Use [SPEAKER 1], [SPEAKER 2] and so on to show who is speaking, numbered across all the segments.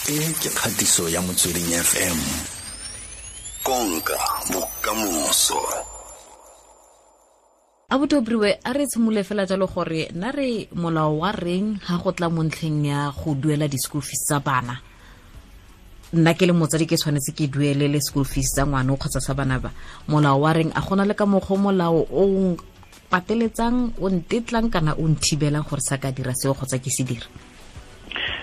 [SPEAKER 1] E ke kgatiso ya Motsweding FM. Konka bokamoso.
[SPEAKER 2] Abuti Obriwe, a re tshimole fela jalo gore na re molao wa reng ha go tla mo ntlheng ya go duela di-school fees tsa bana. Nna ke le motsadi ke tshwanetse ke duelele school fees tsa ngwana kgotsa sa bana ba. Molao wa reng, a gona le ka mokgwa molao o pateletsang, o ntetlang kana o nthibelang gore sa ka dira seo kgotsa ke se dira?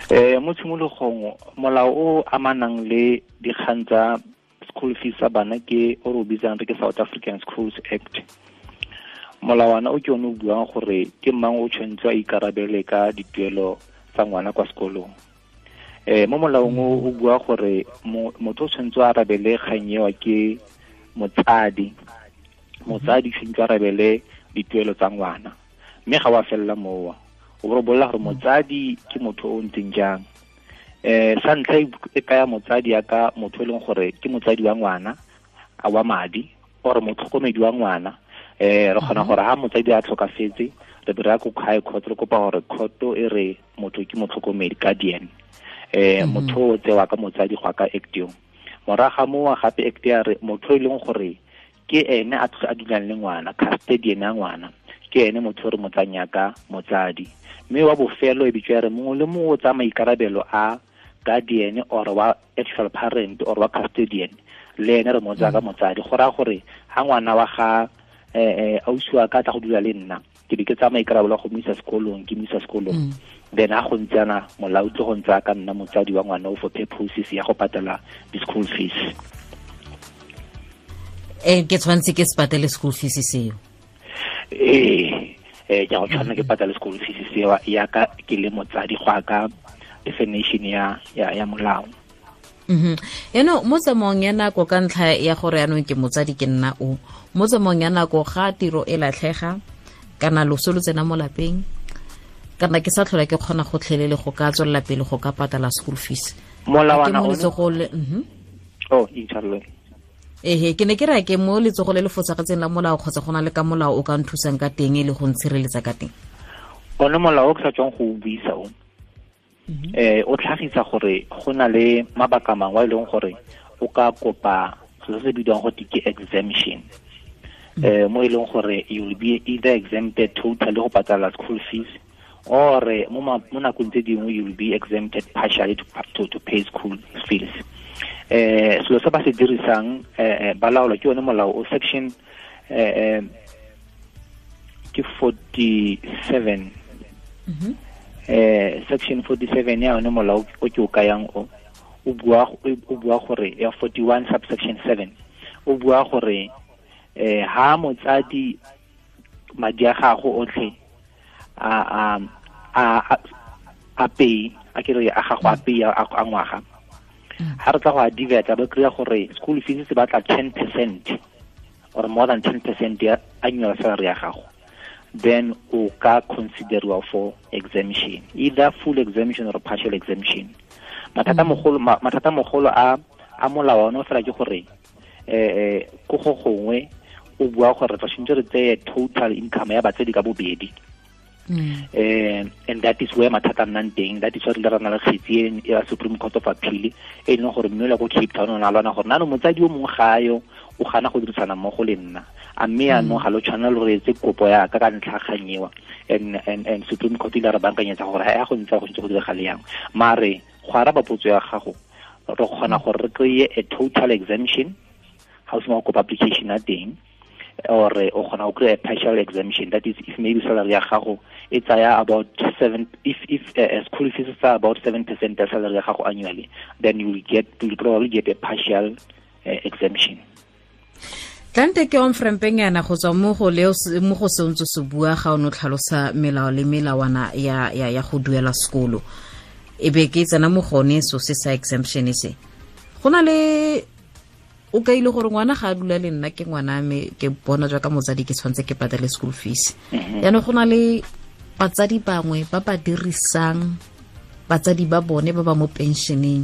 [SPEAKER 3] Mo tshimologong molao o amanang le dikgang tsa school fees tsa bana ke o re o bitsang re ke South African Schools Act. Molawana o ke one o buang gore ke mang o tshwanetse a ikarabele ka dituelo tsa ngwana kwa sekolong. Mo molaong o bua gore motho o tshwanetse a arabele kgang eo ke motsadi. Motsadi tshwanetse a arabele dituelo tsa ngwana, mme ga wa fella moo. O bo bolela gore motsadi ke motho o ntseng jang. Sa ntlha e kaya motsadi ya ka motho e leng gore ke motsadi wa ngwana a wa madi or motlhokomedi wa ngwana. Re kgona gore ha motsadi a tlhokafetse re be re ya ko high court re kopa gore court e re motho ke motlhokomedi, guardian. Motho o tsewa ka motsadi go ka act eo. Morago ga moo gape act ya re motho e leng gore ke ene a dulang le ngwana, custodian ya ngwana, ke ene motho re motsanya ka motsadi. Mme wa bofelo e bitswa re mongwe le mongwe o tsaya maikarabelo a guardian or wa actual parent or wa custodian, le ene re mo tsaya ka motsadi. Go raya gore ha ngwana wa ga ausi wa ka tla go dula le nna, ke be ke tsaya maikarabelo a go mo isa sekolong, ke mo isa sekolong. Then ha go ntse yana molao tlo go ntse ka nna motsadi wa ngwana o for purposes ya go patela di-school fees.
[SPEAKER 2] Ke tshwanetse ke se patele school fees seo?
[SPEAKER 3] Ke go tshwanela ke patale school fees seo ya ka ke le motsadi go ka definition ya molao.
[SPEAKER 2] Eno mo tsamaong ya nako ka ntlha ya gore yanong ke motsadi ke nna o, mo tsamaong ya nako ga tiro e latlhega kana loso lo tsena mo lapeng, kana ke sa tlhola ke kgona go tlhelele go ka tswelela pele go ka patala school fees.
[SPEAKER 3] Molawana o inshallah.
[SPEAKER 2] Ke ne ke re ke mo letsogo le le fosagetseng la molao kgotsa go na le ka molao o ka nthusang ka teng e le go ntshireletsa ka teng?
[SPEAKER 3] One molao o ke sa tswang go o buisa o, o tlhagisa gore go na le mabaka mangwe a e leng gore o ka kopa se se bidiwang go ke exemption. Mo e leng gore you will be either exempted totally go patala school fees or mo nakong tse dingwe you will be exempted partially to pay school fees. Selo se ba se dirisang ba laolwa ke yone molao o section ke 47. Section 47 ya yone molao o ke o kayang o bua gore ya 41 subsection 7 o bua gore ha motsadi madi a gago otlhe a pay a ke re a gago a pay a ngwaga, ha re tla go a divert ba kry-a gore school fees se batla 10% or more than 10% ya annual salary ya gago, then o ka consideriwa for exemption, either full exemption or partial exemption. Mathata mogolo a molao ono fela ke gore ko go gongwe o bua gore re tshwanetse re tseye total income ya batsadi ka bobedi. And that is where mathata nnang teng. That is why re na le kgetsi ya Supreme Court of Appeal e leng gore mme o ko Cape Town o na lwana gore nano motsadi o mongwe ga yo o gana go dirisana mmogo le nna, a mme yaanong ga lo tshwanela lo re etse kopo ya ka ntlha kgang eo. And Supreme Court ile re bankanyetsa gore ha go ntse go ntse go diragale yang. Mare go araba potso ya gago, re kgona gore re kry-e a total exemption ga o sena go kopa application ya teng, or o kgona go kry a partial exemption. That is if maybe salary ya gago e tsaya about 7, if school fees are about 7% ya salary ya gago annually, then you will probably get a partial exemption.
[SPEAKER 2] Tlante ke on-frampeng yana go tswa mo go leo mo go sentse se bua ga o no tlhalosa melao le melawana ya go duela sekolo, e be ke tsena mo gone so se sa exemption se. Go na le o ka ile gore ngwana ga a dula le nna ke ngwana me ke bona jwa ka motsadi ke tshwanetse ke patele school fees. Yaanong go na le batsadi bangwe ba ba dirisang batsadi ba bone ba ba mo pensioneng,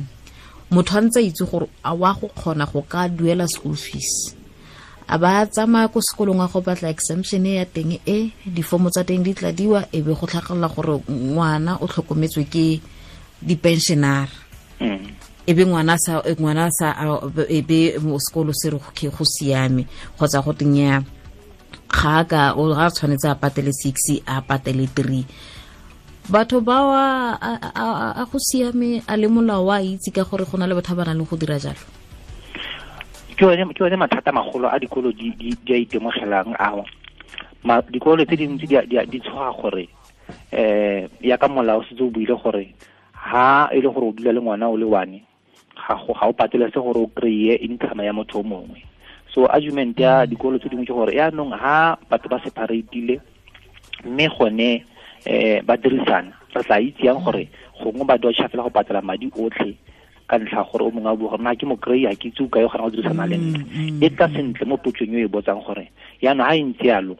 [SPEAKER 2] motho a ntse a itse gore a wa go kgona go ka duela school fees, a ba tsamaya ko sekolong a go batla exemption ya teng e difomo tsa teng di tladiwa e be go tlhagelela gore ngwana o tlhokometswe ke di-pensionara. E be ngwana sa e be mo sekolo se re go siame kgotsa go tenya ga ka o ga tshwanetse a patele 6 a patele 3. Batho ba a go siame a le molao wa itse ka gore go na le batho ba ba nang le go dira jalo.
[SPEAKER 3] Ke one mathata magolo a dikolo di a itemogelang ao. Dikolo tse dintsi di tshoga gore ya ka molao setse o buile gore ha e le gore o dula le ngwana o le one ga o patele se gore o kry-e income ya motho o mongwe. So argument ya dikolo tse dingwe ke gore yaanong ha batho ba separatile mme gone ba dirisana re tla itse yang gore gongwe ba dodge fela go patela madi otlhe ka ntlha gore o mongwe a bua gore na ke mo kry-a ke itse o kae o kgona go dirisana le nna. E tla sentle mo potsong e botsang gore yaanong ha e ntse yalo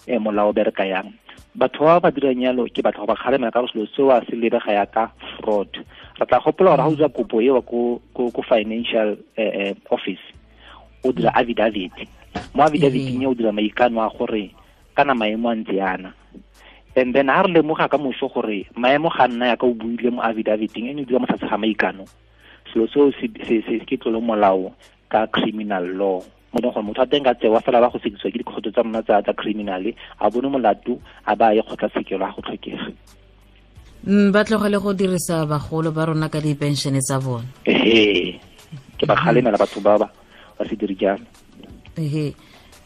[SPEAKER 3] molao o bereka yang. Batho ba ba dirang yalo ke batho ba kgalemela ka selo seo a se lebega yaka fraud. Re tla gopola gore ha o dira kopo eo ko financial office o dira affidavit. Mo affidavit o dira maikano a gore kana maemo a ntse yana. And then ha re lemoga ka moso gore maemo ga nna yaka o buile mo affidaviteng ene o dira mo tlase ga maikano, selo seo se ke tlolo molao ka criminal law. Mo leng gore motho a teng ka tsewa fela ba go sekisiwa ke dikgotso tsa rona tsa criminal a bone molato a ba ye kgotlatshekelo a go tlhokega.
[SPEAKER 2] Ba tlogele go dirisa bagolo ba rona ka dipenšene tsa bone.
[SPEAKER 3] Ehe, ke ba kgalemela batho ba ba se dire jalo.
[SPEAKER 2] Ehe,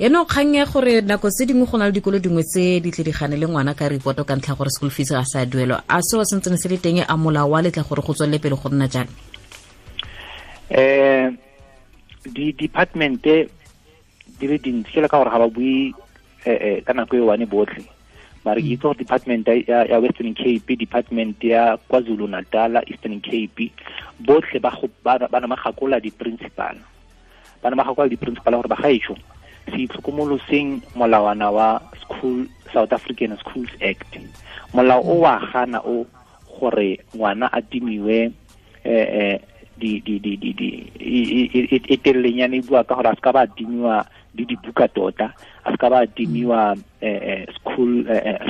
[SPEAKER 2] eno kgang ya gore nako tse dingwe go na le dikolo dingwe tse di tle di gane le ngwana ka reporto ka ntlha gore school fees ga sa duelwa. A seo se ntse se le teng a molao wa letla gore go tswelele pele go nna jalo?
[SPEAKER 3] Di department di le dintsi ke le ka gore ga ba bue ka nako e one botlhe. Mare ke itse gore department ya Western Cape, department ya KwaZulu Natal, Eastern Cape, botlhe ba na magakola di-principal. Ba na magakola di-principal gore ba gaetsho se itlhokomoloseng molawana wa School South African Schools Act. Molao o wa gana o gore ngwana a timiwe di e telelenyana e bua ka gore a se ka ba timiwa le dibuka tota, a se ka ba timiwa school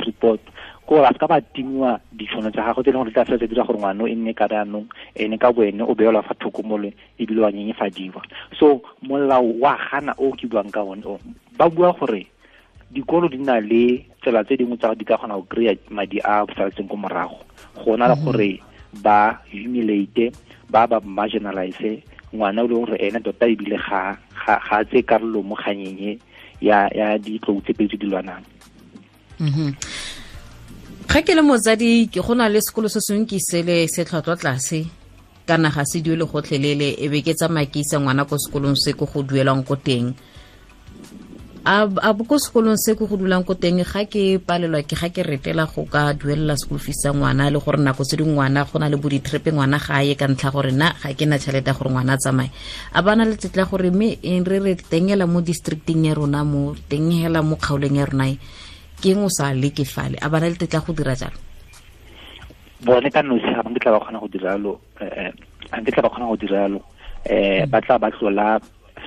[SPEAKER 3] report, ko gore a se ka ba timiwa ditšhono tsa gagwe tse e leng gore di tla fela tse dira gore ngwana e nne ka jaanong ene ka boene o beelwa fa thoko mole ebile wa nyenyefadiwa. So molao wa gana o ke buang ka one o ba bua gore dikolo di na le tsela tse dingwe tsa di ka kgona go kry-a madi a saletseng ko morago go na le gore ba humiliate ba marginalize ngwana o leng gore ene tota ebile ga a tse karolo mo kganyeng ya ditlou tse pedi tse di lwanang.
[SPEAKER 2] Ga ke le motsadi ke go na le sekolo se sengwe ke sele se tlhwatlhwa tlase kana ga se duele gotlhelele e be ke tsamaya ke isa ngwana ko sekolong se ko go duelang ko teng. A ko sekolong se ko go dulang ko teng ga ke palelwa ke ga ke retela go ka duelela school fees sa ngwana le gore nako tse dingwe ngwana go na le bo di-trip ngwana ga ye ka ntlha gore nna ga ke na tšhelete ya gore ngwana a tsamaye. A ba na le tetla gore mme re re tengela mo districting ya rona mo tengela mo kgaolong ya rona ke eng o sa leke fale, a ba na le tetla go dira jalo?
[SPEAKER 3] Bone ka nosi ga nkitla ba kgona go dira jalo, ga nkitla ba kgona go dira jalo. Ba tla ba tlola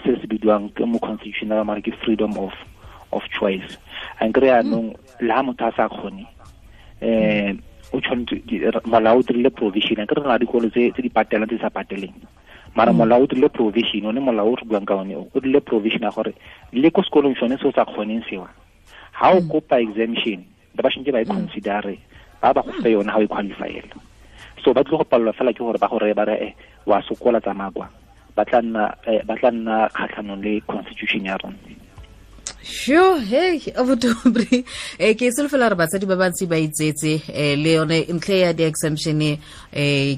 [SPEAKER 3] se se bidiwang ke mo constitutional mare ke freedom of choice. A nkry yaanong le ha motho a sa kgone o tshwanetse molao o dirile provision. A nkry re na dikolo tse di patelang tse di sa pateleng, mara molao o dirile provision, one molao o re buang ka one o dirile provision ya gore le ko sekolong sone se o sa kgoneng sewa ha o kopa exemption ba shintse ba e considere ba go fe yone ha o e qualifyela. So ba tlile go palelwa fela ke gore ba go reye ba re wa sokola tsamaya kwa, ba tla nna kgatlhanong le constitution ya rona.
[SPEAKER 2] Sure, hey, abuti ke solofela re batsadi ba bantsi ba itsetse le yone ntlhe ya di-exemption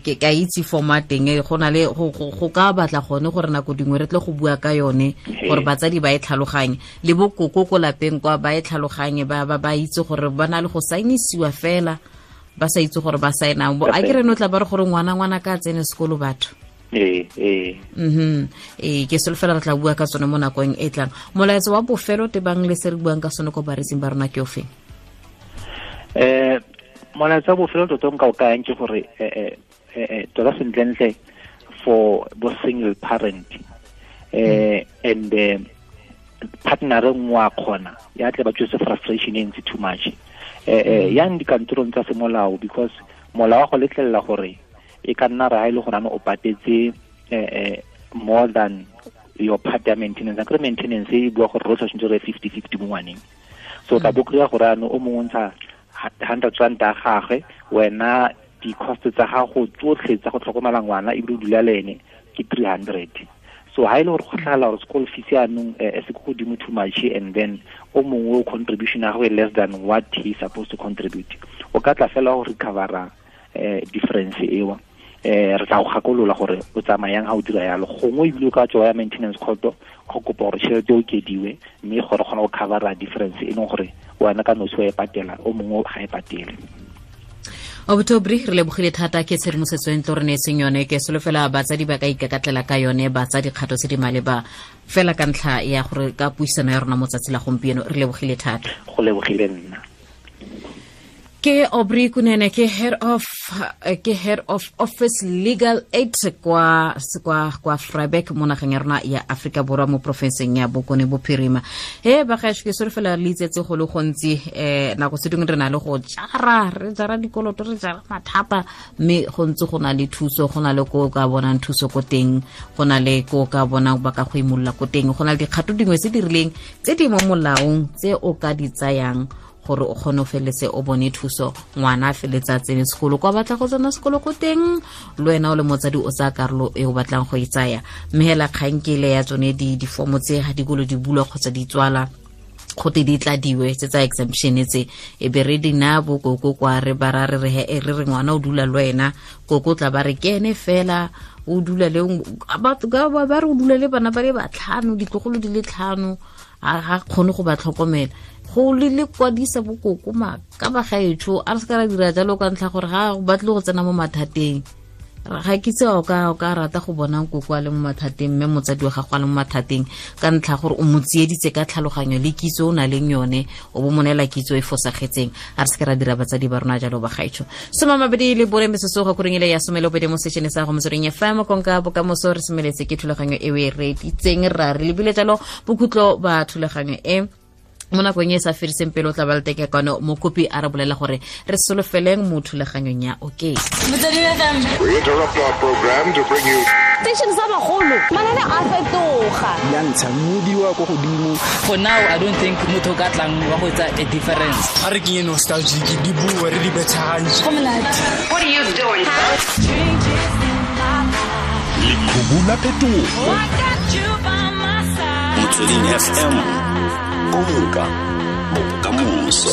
[SPEAKER 2] ke ka itse forma teng go na le go ka batla gone gore nako dingwe re tle go bua ka yone gore batsadi ba e tlhaloganye le bokoko ko lapeng kwa ba e tlhaloganye ba itse gore ba na le go saenisiwa fela ba sa itse gore ba saenang. A ke re no tla ba re gore ngwana ka tsene sekolo batho. Ke solofela re tla bua ka tsone mo nakong e tlang. Molaetsa wa bofelo tebang le se re buang ka sone ko bareetsing ba rona ke ofeng?
[SPEAKER 3] Molaetsa wa bofelo tota nka o kayang ke gore tota sentlentle for bo single parent and partner nngwe wa kgona ya tle ba tswetse frustration e ntsi too much yang dikantorong tsa semolao, because molao wa go letlelela gore e ka nna ra e le gore o patetse more than your part ya maintenance. Akere maintenance e bua gore rotlhe tshwanetse re 50-50 mo ngwaneng. So tla bo kry-a gore ano o mongwe ntsha 100 rand a gagwe, wena di-cost tsa gago tsotlhe tsa go tlhokomela ngwana ebile o dula le ene ke 300. So ha ile gore go tlhagala gore school fees yaanong e se ko godimo too much, and then o mongwe o contribution ya gagwe less than what he supposed to contribute, o ka tla fela go recovera difference eo. Re tla go gakolola gore o tsamayang ha o dira yalo, gongwe ebile o ka tswa ya maintenance court go kopa gore tšhelete o okediwe mme gore kgona go covera difference e leng gore wena ka nosi wa e patela, o mongwe ga e patele.
[SPEAKER 2] October re lebogile thata ke tshedimosetso e ntlo re neetseng yone. Ke solofela batsadi ba ka ikakatlela ka yone, ba tsa dikgato tse di maleba fela ka ntlha ya gore ka puisano ya rona mo tsatsi la gompieno. Re lebogile thata.
[SPEAKER 3] Go lebogile nna.
[SPEAKER 2] Ke Aubrey Kunene, ke head of office legal aid kwa Vryburg mo nageng ya rona ya Afrika Borwa mo porofenseng ya Bokone Bophirima. He ba gaetsho, ke solofela le itsetse go le gontsi. Nako tse dingwe re na le go jara, re jara dikoloto, re jara mathata, mme go ntse go na le thuso, go na le ko ka bonang thuso ko teng, go na le ko ka bonang ba ka go imolola ko teng, go na le dikgato dingwe tse di rileng tse di mo molaong tse o ka di tsayang gore o kgone o feletse o bone thuso, ngwana a feletse a tsene sekolo kwa batla go tsena sekolo ko teng, le wena o le motsadi o tsaya karolo e o batlang go e tsaya. Mme hela kgang ke ile ya tsone difomo tse ga dikolo di bulwa kgotsa di tswala, gote di tladiwe tse tsa exemption tse, e be re di naya bokoko kwa re ba ra re re he re re ngwana o dula le wena, koko tla ba re ke ene fela o dula le batho ba re o dula le bana ba le batlhano, ditlogolo di le tlhano, ga kgone go ba tlhokomela. Go le kwadisa bokoko ka ba gaetsho, a re se ka ra dira jalo ka ntlha gore ga o batle go tsena mo mathateng. Ga ke itse o ka rata go bona nkoko a le mo mathateng, mme motsadi wa gago a le mo mathateng ka ntlha gore o mo tsieditse ka tlhaloganyo le kitso o na leng yone, o bo mo neela kitso e fosagetseng. A re se ka ra dira batsadi ba rona jalo ba gaetsho. 24 metsotso go koreng ile ya 12 mo sešene sa go Motsweding FM, konka bokamoso. Re semeletse ke thulaganyo e o e reeditseng, ra re lebile jalo bokhutlo ba thulaganyo e mo nakong e sa fediseng pele o tla ba le teke kwano mokopi a re bolela gore re solofeleng mo thulaganyong ya okay.
[SPEAKER 4] We interrupt our program to bring you
[SPEAKER 5] station sa bagolo, manane a fetoga
[SPEAKER 6] ya ntsha modiwa ko godimo.
[SPEAKER 7] For now I don't think motho ka tlang wa go etsa a difference.
[SPEAKER 6] A re ke nostalgic di bua re di betshagantse.
[SPEAKER 5] Go monate.
[SPEAKER 8] What are you doing?
[SPEAKER 1] Lekhubu la phetogo. Motsweding FM. Konka bokamoso.